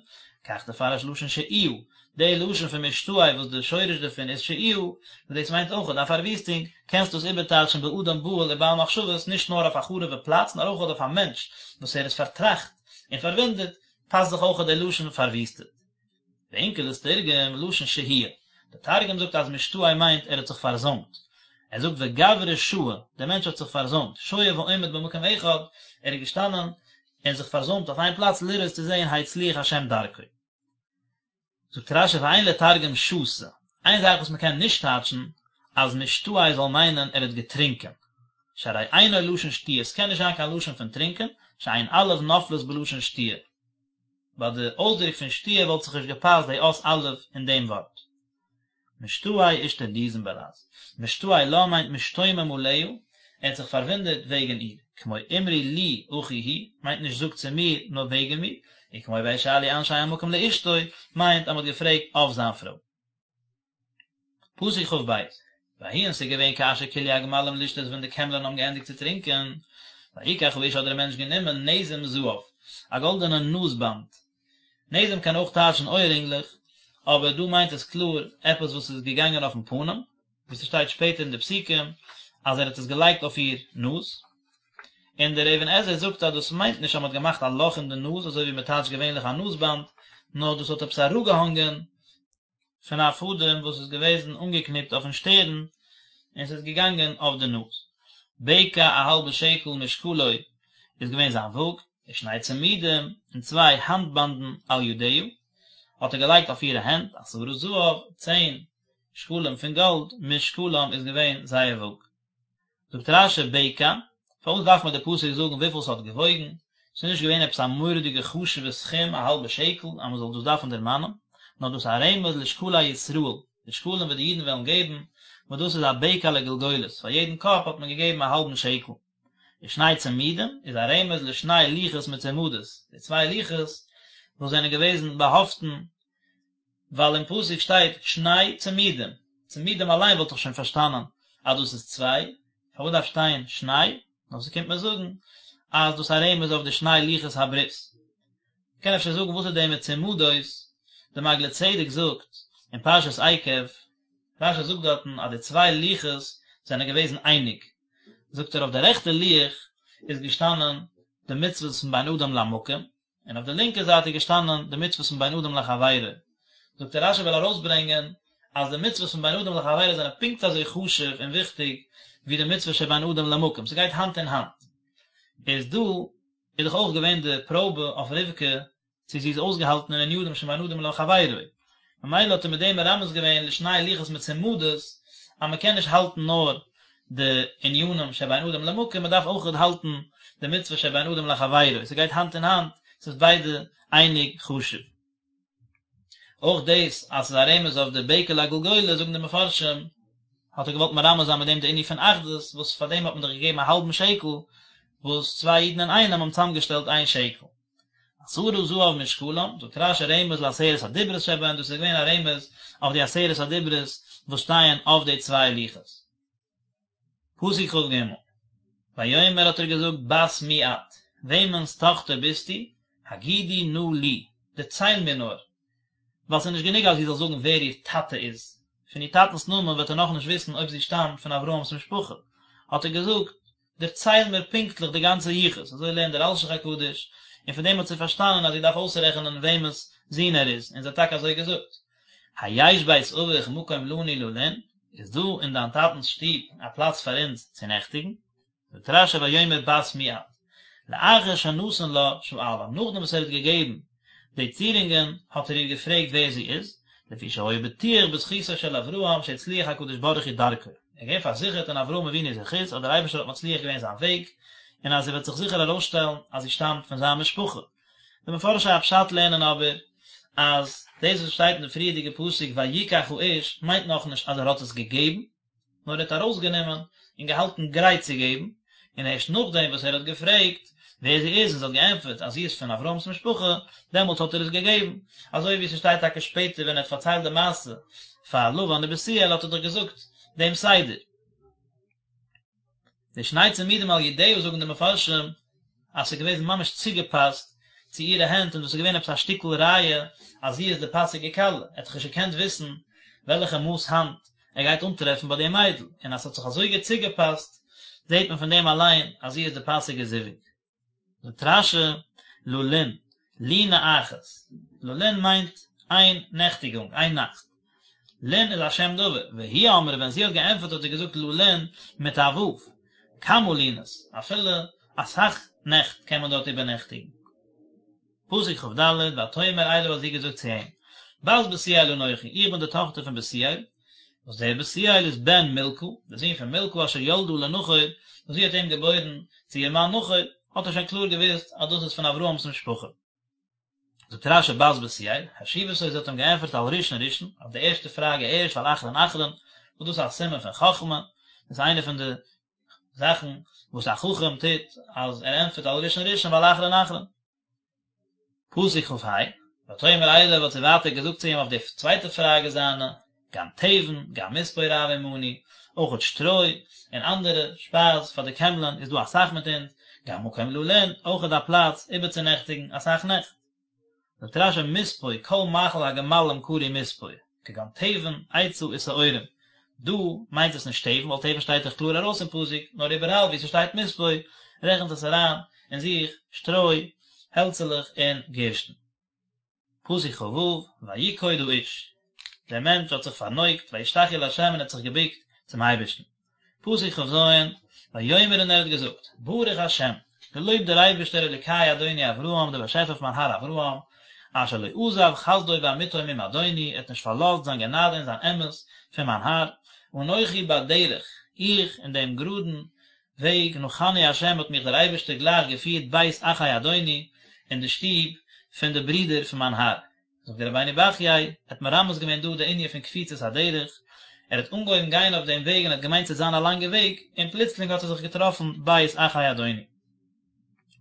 כך תפרש לשון שאיה, די לשון פון משתאה וואס די שורש דערפון איז שאיה, וואס דאס מיינט אויכעט א פארוויסטונג, קענסט דאס איבערטייטשן באדם בהול ובעל מחשבות נישט נאר אויף א חרוב'ע פלאץ נאר אויכעט אויף א מענטש וואס ער איז פארטראכט און פארוואונדערט, פאסט זיך אויכעט די לשון פארוויסטעט. ואונקלוס תרגם לשון שהויא, דער תרגום זאגט אז משתאה מיינט ער האט זיך פארזוימט, ער זאגט וגברא שהי, דער מענטש האט זיך פארזוימט, שוהה ועומד במקום אחד, ער איז געשטאנען און זיך פארזוימט אויף איין פלאץ לראות צו זען הצליח השם דרכו. זאגט רש"י ואין לתרגם שתה, איין זאך וואס מען קען נישט טייטשן אז משתאה זאל מיינען ער האט געטרינקען, שהרי אינו לשון שתיה, עס קען נישט זיין קיין לשון פון טרינקען, שאין אלף נופלת בלשון שתיה. ביי די אויסדרוק פון שתיה וואלט זיך נישט געפאסט די אות א' אין דעם ווארט. משתאה אישתרדיזן בלע"ז. משתאה לה מיינט משתומם עליה, ער האט זיך פארוואונדערט וועגן איר. כמו אמרו לי אחי הוא, מיינט נישט זאגט צו מיר, נאר וועגן מיר. וכמו וישאלו אנשי המקום לאשתו, מיינט אז מען האט געפרעגט אויף זיין פרוי. פסוק כ"ב, ויהי און ס'איז געווען כאשר כלו הגמלים לשתות ווען די קעמלען האבן געענדיגט צו טרינקען, ויקח האיש האט דער מענטש גענומען נזם זהב, א גאלדענע נאז באנד, נזם קען אויך טייטשן אויערינגלעך, אבער דא מיינט עס קלאר עפעס וואס איז געגאנגען אויפן פנים, ווי ס'שטייט שפעטער אין די פסוקים אז ער האט עס געלייגט אויף איר נאז, און דער אבן עזרא זאגט אז דאס מיינט נישט אז מ'האט געמאכט א לאך אין די נאז אזוי ווי מ'טייטשט געווענליך א נאז באנד, נאר דאס האט עפעס אראפגעהאנגען פון א פאדעם וואס איז געוועזן אנגעקניפט אויפן שטערן און ס'איז געגאנגען אויף די נאז. בקע א האלבע שקל משקלו איז געווען זיין וואג, ושני צמידים און צוויי האנט באנדן על ידיה האט ער געלייגט אויף אירע הענט, עשרה זהב, צען שקלים פון גאלד, משקלם איז געווען זייער וואג. זאגט רש"י בקע, פארוואס דארף מיר די פסוק זאגן וויפיל ס'האט געוואויגן, ס'איז נישט געווען עפעס א מורא'דיגע חשוב'ע סכום א האלבע שקל אז מ'זאל דאס דארפן דערמאנען, נאר דאס איז א רמז לשקלי ישראל, די שקלים וואס די אידן וועלן געבן, וואס דאס איז א בקע לגולגולת, פאר יעדן קאפ האט מען געגעבן א האלבן שקל. ושני צמידים איז א רמז לשני לוחות מצומדות, די צוויי לוחות וואס זענען געוועזן באהאפטן, ווייל אין פסוק שטייט שני צמידים, צמידים אליין וואלט איך שוין פארשטאנען אז דאס איז צוויי, פארוואס דארף שטיין שני? נאר ס'קומט מיר זאגן אז דאס איז א רמז אויף די שני לוחות הברית. מ'קען אפשר זאגן וואס איז די מצומדות, די מעגלי צדק זאגט אין פרשת עקב, רש"י זאגט דארטן אז די צוויי לוחות זענען געוועזן אייניג, זאגט ער אויף די רעכטע לוח איז געשטאנען די מצוות פון בין אדם למקום, און אויף די לינקע זייט איז געשטאנען די מצוות פון בין אדם לחבירו. זאגט ער רש"י וויל ארויסברענגען אז די מצוות פון בין אדם לחבירו זענען פונקט אזוי חשוב און וויכטיג ווי די מצוות שבין אדם למקום, ס'גייט האנט אין האנט. איז דא איז דאך אויך געווען די פראבע אויף רבקה צו זי איז אויסגעהאלטן אין ענינים שבין אדם לחבירו, ממילא האט ער מיט דעם מרמז געווען לשני לוחות מצומדות אז מען קען נישט האלטן נאר די ענינים שבין אדם למקום, מען דארף אויך האלטן די מצוה שבין אדם לחבירו, ס'גייט האנט אין האנט, ס'איז ביידע אייניג חשוב. אויך דאס אז ס'איז א רמז אויף די בקע לגולגולת זאגן די מפרשים, האט ער געוואלט מרמז זיין מיט דעם די ענין פון אחדות, וואס פאר דעם האט מען דאך געגעבן א האלבן שקל, וואס צוויי אידן אינאיינעם האבן צוזאמגעשטעלט איין שקל. עשרה זהב משקלם, זאגט רש"י רמז לעשרת הדיברות שבהן, דאס איז געווען א רמז אויף די עשרת הדיברות וואס שטייען אויף די צוויי לוחות. פסוק כ"ג, ויאמר האט ער געזאגט בת מי את, וועמענס טאכטער ביסטו, הגידי נא לי, דערצייל מיר נאר, ווייל ס'איז נישט גענוג אז זי זאל זאגן ווער איר טאטע איז, פון איר טאטנ'ס נאמען וועט ער נאכנישט וויסן אויב זי שטאמט פון אברהם'ס משפחה, האט ער געזאגט, דערצייל מיר פונקטליך די גאנצע יחוס, אזוי לערנט דער אלשיך הקדוש, און פון דעם האט זי פארשטאנען אז זי דארף אויסרעכענען וועמענס זון ער איז, און זי האט טאקע אזוי געזאגט. היש בית אביך מקום לנו ללון, איז דא אין דיין טאטנ'ס שטוב א פלאץ פאר אונז צו נעכטיגן? זאגט רש"י ויאמר בת מי את, לאחר שנתן לה שאלה, נאכדעם וואס ער האט געגעבן די צירונגען האט ער איר געפרעגט ווער זי איז, לפי שהיה בטוח בזכותו של אברהם שהצליח הקדוש ברוך הוא דרכו, ער איז געווען פארזיכערט אין אברהם אבינו'ס זכות אז דער אייבערשטער האט מצליח געווען זיין וועג, און אז ס'וועט זיך זיכער ארויסשטעלן אז זי שטאמט פון זיין משפחה. די מפרשי הפשט לערנען אבער אז דאס וואס שטייט אין די פריערדיגע פסוק ויקח האיש מיינט נאכנישט אז ער האט עס געגעבן, נאר ער האט ארויסגענומען און געהאלטן גרייט צו געבן, און ערשט נאכדעם וואס ער האט געפרעגט ווער זי איז און זי האט געענטפערט אז זי איז פון אברהם'ס משפחה, דעמאלטס האט ער עס געגעבן, אזוי ווי ס'שטייט טאקע שפעטער ווען ער האט פארציילט די מעשה פאר לבן ובתואל האט ער דאך געזאגט דעם סדר. די שני צמידים על ידיה זאגן די מפרשים אז ס'איז געוועזן ממש צוגעפאסט צו אירע הענט און דאס איז געווען עפעס א שטיקל ראיה אז זי איז די פאסיגע כלה, ער האט דאך נישט געקענט וויסן וועלכע מאס האנט ער גייט אנטרעפן ביי די מיידל, און אז ס'האט זיך אזוי גוט צוגעפאסט זעט מען פון דעם אליין אז זי איז די פאסיגע זיווג. זאגט רש"י, ללון, לינה אחת, ללון מיינט איין נעכטיגונג, איין נאכט. לון איז א שם דבר, והיא אמרה ווען זי האט געענטפערט האט זי געזאגט ללון מיט א ו', כמה לינות, אפילו אסאך נעכט קען מען דארט איבערנעכטיגן. פסוק כ"ד, ותאמר אליו האט זי געזאגט צו אים, בת בתואל אנכי, איך בין די טאכטער פון בתואל, וואס דער בתואל איז בן מלכה, דער זון פון מלכה אשר ילדה לנחור, וואס זי האט אים געבוירן צו איר מאן נחור, האט ער שוין קלאר געוואוסט אז דאס איז פון אברהם'ס משפחה. זאגט רש"י בת בתואל, השיבתו זי האט אים געענטפערט על ראשון ראשון, אויף די ערשטע פראגע ערשט ועל אחרון אחרון, וואס דאס איז א סימן פון חכמה, דאס איז איינע פון די זאכן וואס א חכם טוט, אז ער ענטפערט על ראשון ראשון ועל אחרון אחרון. פסוק כ"ה, ותאמר אליו האט זי ווייטער געזאגט צו אים אויף די צווייטע פראגע זיינע, גם תבן, גם מספוא רב עמנו, אויכעט שטרוי און אנדערע שפייז פאר די קעמלען איז דא אסאך מיט אונז, גם מקום ללון, אויכעט א פלאץ איבערצונעכטיגן אסאך נעכט. זאגט רש"י מספוא כל מאכל הגמלים קרוי מספוא, כגון תבן, עצה ושעורים, דא מיינט עס נישט תבן ווייל תבן שטייט דאך קלאר ארויס אין פסוק, נאר איבעראל וואו ס'שטייט מספוא רעכנט עס אריין אין זיך שטרוי, העלצעלעך און גערשטן. פסוק כ"ו, ויקוד האיש, דער מענטש האט זיך פארנויגט, וישתחו לה' און האט זיך געבוקט צום אייבערשטן. פסוק כ"ז, ויאמר און ער האט געזאגט, ברוך השם, געלויבט דער אייבערשטער אלוקי אדוני אברהם, דער באשעפער פון מיין האר אברהם, אשר לא עזב חסדו ואמיתו מעם אדוני, ער האט נישט פארלאזט זיין גענאדע און זיין אמת פון מיין האר, אנכי בדרך, איך אין דעם גראדן. וועג, נחני ה' האט מיך דער אייבערשטער גלייך געפירט בית אחי אדוני, אין די שטוב פון די ברידער פון מיין האר. זאגט דער רבינו בחיי, ער האט מרמז געווען דא די ענין פון קפיצת הדרך, ער האט אנגעהויבן גיין אויף דעם וועג און האט געמיינט ס'וועט זיין א לאנגע וועג, און פלוצלינג האט ער זיך געטראפן בית אחי אדוני.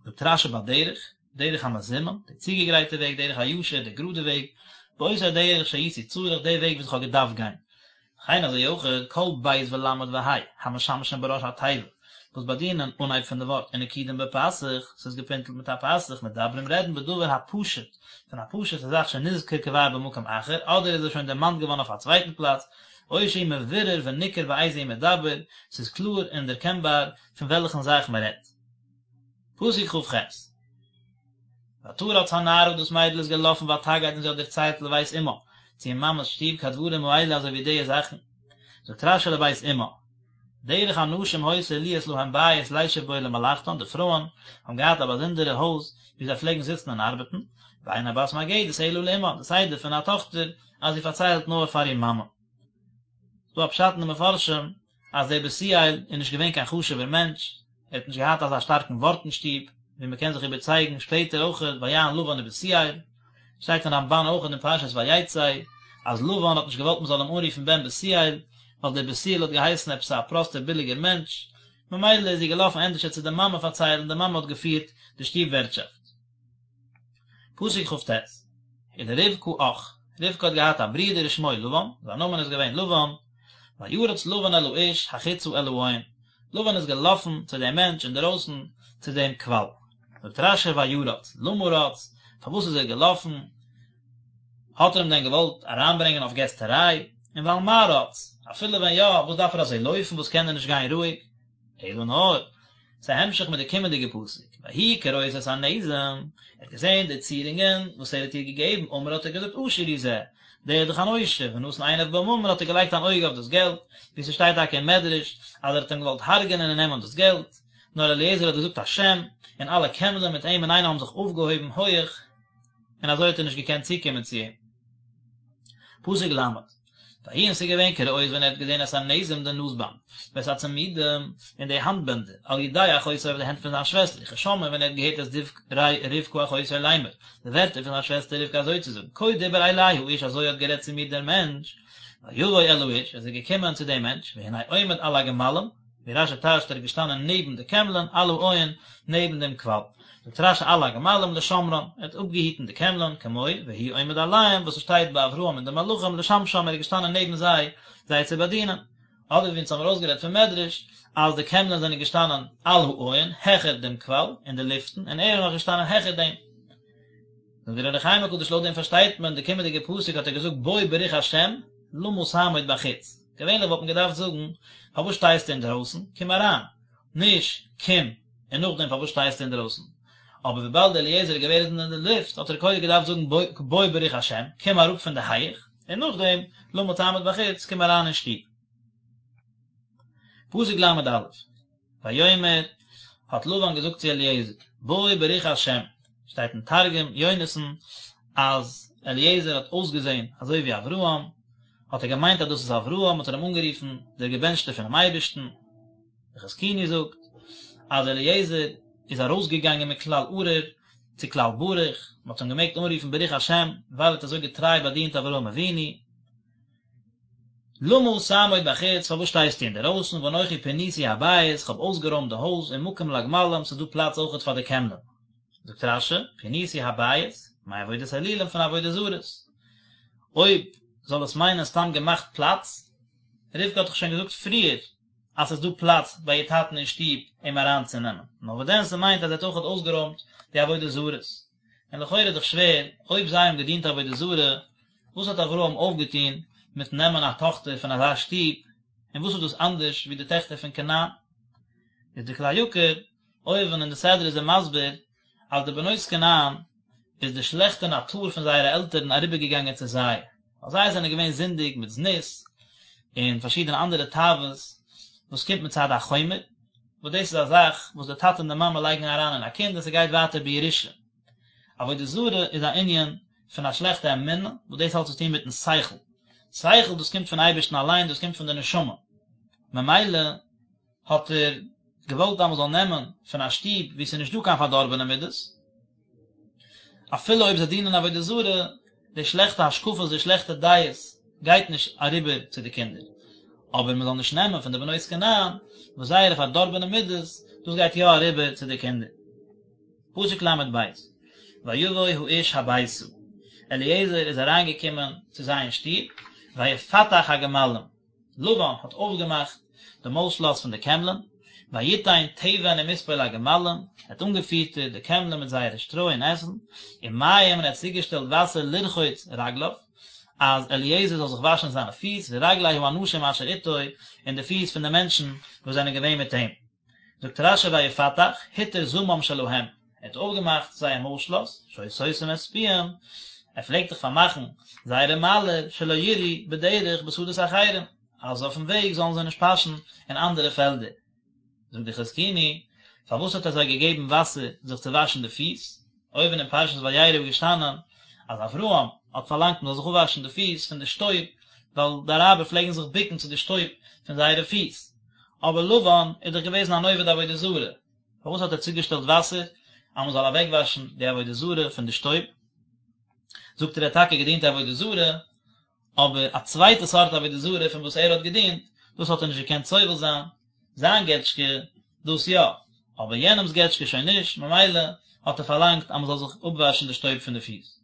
זאגט רשי בדרך, דרך המזומן, די צוגעגרייטע וועג, דרך הישר, די גראדע וועג, באותו דרך שהייתי צריך, די וועג וואס איך האב געדארפט גיין. וכן אזוי אויך, כל ב' ול' וה', המשמשים בראש התיבה, וואס באדינען אנהייב פון די ווארט, ונקודים בפתח, ס'איז געפינטלט מיט א פתח, מדברים רעדן בדבר הפשוט, פון א פשוט'ע זאך שנזכר כבר במקום אחר, אדער איז עס שוין דערמאנט געווארן אויף א צווייטן פלאץ, או שהוא מבורר וניכר באיזה הוא מדבר, ס'איז קלאר און דערקענבאר פון וועלכן זאך מ'רעדט. פסוק כ"ח. ותרץ הנערה דאס מיידל איז געלאפן ותגד און זי האט דערציילט לבית אמה, צו איר מאמע'ס שטוב כדברים האלה אזוי ווי די זאכן. זאגט רשי לבית אמה, דרך הנשים היתה להיות להן בית לישב בו למלאכתן, די פרויען האבן געהאט א באזונדערע הויז וואו זיי פלעגן זיצן און ארבעטן, ואין הבת מגדת אלא לאמה, די סדר פון א טאכטער אז זי פארציילט נאר פאר איר מאמע. ס'דא א פשט אין די מפרשים אז דער בתואל איז נישט געווען קיין חשוב'ער מענטש, ער האט נישט געהאט אזא שטארקן ווארט אין שטוב, ווי מ'קען זיך איבערצייגן שפעטער אויכעט ויען לבן ובתואל, שטייט אין רמבן אויכעט אין פרשת ויצא אז לבן האט נישט געוואלט מ'זאל אים אנרופן בן בתואל, ווייל דער בתואל האט געהייסן עפעס א פראסטער ביליגער מענטש, ממילא איז זי געלאפן ענדערשער צו די מאמע פארציילן, די מאמע האט געפירט די שטוב ווערטשאפט. פסוק כ"ט, ולרבקה אח, רבקה האט געהאט א ברודער ושמו לבן, זיין נאמען איז געווען לבן, וירץ לבן אל האיש החוצה אל העין, לבן איז געלאפן צו דעם מענטש אינדערויסן צו דעם קוואל. זאגט רשי וירץ, למה רץ, פארוואס איז ער געלאפן, האט ער אים דען געוואלט אריינברענגען אויף געסטעריי, און ועל מה רץ, אפילו ווען יא, וואס דארף ער אזוי לויפן, וואס קען ער נישט גיין רואיג? אלא נאר, ס'איז א המשך מיט די קומענדיגע פסוק, ויהי כראות את הנזם, ער האט געזען די צירונגען וואס ער האט איר געגעבן, אמר האט ער געזאגט עשיר הוא זה, דער איז דאך אן עושר, ונתן עיניו בממון האט ער געלייגט אן אויג אויף דאס געלט, ווי ס'שטייט טאקע אין מדרש אז ער האט אים געוואלט הרג'ענען און נעמען דאס געלט, נאר אליעזר האט געזאגט א שם, און אלע קעמלען מיט אים אינאיינעם האבן זיך אויפגעהויבן הויעך, און אזוי האט ער נישט געקענט צוקומען צו אים. פסוק ל'. ויהי און ס'איז געווען כראות ווען ער האט געזען את הנזם די נאזבאנד, ואת הצמידים, און די האנטבענדער, על ידי אחותו אויף די הענט פון זיין שוועסטער, וכשמעו ווען ער האט געהערט את דברי רבקה אחותו לאמר, די ווערטער פון זיין שוועסטער רבקה אזוי צו זאגן, כה דיבר אלי האיש אזוי האט גערעדט צו מיר דער מענטש, ויבוא אל האיש, איז ער געקומען צו דעם מענטש, והנה עומד על הגמלים, ווי רשי טייטשט ער איז געשטאנען נעבן די קעמלען, על העין, נעבן דעם קוואל. זאגט רשי על הגמלים לשמרן, ער האט אפגעהיטן די קעמלען, כמו והוא עומד עליהם וואס עס שטייט ביי אברהם און די מלאכים לשמשם ער איז געשטאנען נעבן זיי זיי צו באדינען. אדער ווי אונז האבן ארויסגערעדט פון מדרש אז די קעמלען זענען געשטאנען על העין, העכער דעם קוואל, אין די לופטן, און ער איז נאך געשטאנען העכער דעם. זאגט דער אור החיים הקדוש לויט דעם פארשטייט מען די קומענדיגע פסוק האט ער געזאגט בוא ברוך השם למה תעמוד בחוץ, געווענליך וואלט מען געדארפט זאגן פארוואס שטייסטו אינדערויסן, קום אריין, נישט קום און נאכדעם פארוואס שטייסטו אינדערויסן, אבער וויבאלד אליעזר איז געוועזן אין די לופט האט ער קודם געדארפט זאגן בוא ברוך השם, קום אראפ פון די הייך, און נאכדעם למה תעמוד בחוץ, קום אריין אין שטוב. פסוק ל"א. ויאמר, האט לבן געזאגט צו אליעזר, בוא ברוך השם, שטייט אין תרגום יונתן אז אליעזר האט אויסגעזען אזוי ווי אברהם, האט ער געמיינט אז דאס איז אברהם, האט ער אים אנגערופן דער געבענטשטער פונעם אייבערשטן. דער חזקוני זאגט אז אליעזר איז ארויסגעגאנגען מכלל ארור צו כלל ברוך, מען האט אים געמעגט אנרופן ברוך השם ווייל ער האט אזוי געטריי באדינט אברהם אבינו. למה תעמוד בחוץ, פארוואס שטייסטו אינדערויסן, ואנכי פיניתי הבית, כ'האב אויסגערוימט די הויז, ומקום לגמלים, ס'איז דא פלאץ אויכעט פאר די קעמלען. זאגט רש"י, פיניתי הבית, מעבודת אלילים פון עבודה זרות. אויב זאל עס מיינען סתם געמאכט פלאץ, רבקה האט דאך שוין געזאגט פריער אז ס'איז דא פלאץ ביי איר טאטן אין שטוב אים אריינצונעמען, נאר וואס דען ס'מיינט אז ער האט אויכעט אויסגערוימט די עבודה זרות. און לכאורה איז דאך שווער, אויב זיי האבן געדינט עבודה זרה, וואס האט אברהם אויפגעטון מיטן נעמען א טאכטער פון אזא שטוב, און וואס איז דאס אנדערש ווי די טעכטער פון כנען? איז די כלי יקר אויבן אין די סדרה איז ער מסביר אז די בנות כנען איז די שלעכטע נאטור פון זייערע עלטערן אריבערגעגאנגען צו זיי, ווייל זיי זענען געווען זינדיג מיט זנות און פארשידענע אנדערע תאוות וואס קומט מצד החומר, וואס דאס איז א זאך וואס די טאטע און די מאמע לייגן אריין אין א קינד און ס'גייט ווייטער בירושה. עבודה זרה איז א ענין פון א שלעכטע אמונה, וואס דאס האט צו טון מיטן שכל. שכל דאס קומט פון אייבערשטן אליין, דאס קומט פון די נשמה. ממילא האט ער. געוואלט אז מען זאל נעמען פון א שטוב וואו ס'איז נישט דא קיין פארדארבענע מידות, אפילו אויב זיי דינען עבודה זרה, די שלעכטע השקפות, די שלעכטע דעות, גייט נישט אריבער צו די קינדער. אבער מען זאל נישט נעמען פון די בנות כנען, וואס זייערע פארדארבענע מידות, דאס גייט יא אריבער צו די קינדער. פסוק ל"ב, ויבא האיש הביתה, אליעזר איז אריינגעקומען צו זיי אין שטוב, ויפתח הגמלים, לבן האט אויפגעמאכט די מויל-שלאס פון די קעמלען, ויתן תבן ומספוא לגמלים, ער האט אנגעפיטערט די קעמלען מיט זייערע שטרוי און עסן, ומים און ער האט צוגעשטעלט וואסער לרחוץ רגליו, אז אליעזר זאל זיך וואשן זיינע פיס, ורגלי האנשים אשר איתו, און די פיס פון די מענטשן וואס זענען געווען מיט אים. זאגט רש"י ויפתח, התיר זמם שלהם, ער האט אויפגעמאכט זייער מויל שלאס, שהיה סותם את פיהם, ער פלעגט דאך פארמאכן זייערע מיילער, שלא ירעו בדרך בשדות אחרים, אז אויפן וועג זאלן זיי נישט פאשן אין אנדערע פעלדער. זאגט די חזקוני, פארוואס האט ער זיי געגעבן וואסער זיך צו וואשן די פיס? אויבן אין פרשת וירא איז געשטאנען אז אברהם האט פארלאנגט מען זאל זיך אפוואשן די פיס פון די שטויב, ווייל די אראבער פלעגן זיך בוקן צו די שטויב פון זייערע פיס. אבער לבן איז דאך געוועזן אן עובד עבודה זרה, פארוואס האט ער צוגעשטעלט וואסער אז מען זאל אוועקוואשן די עבודה זרה פון די שטויב? זאגט ער ער האט טאקע געדינט עבודה זרה, אבער א צווייטע סארט עבודה זרה פון וואס ער האט געדינט, דאס האט ער נישט געקענט סובל זיין, זיין געטשקע, דאס יא, אבער יענעמס געטשקע שוין נישט, ממילא האט ער פארלאנגט אז מען זאל זיך אפוואשן די שטויב פון די פיס.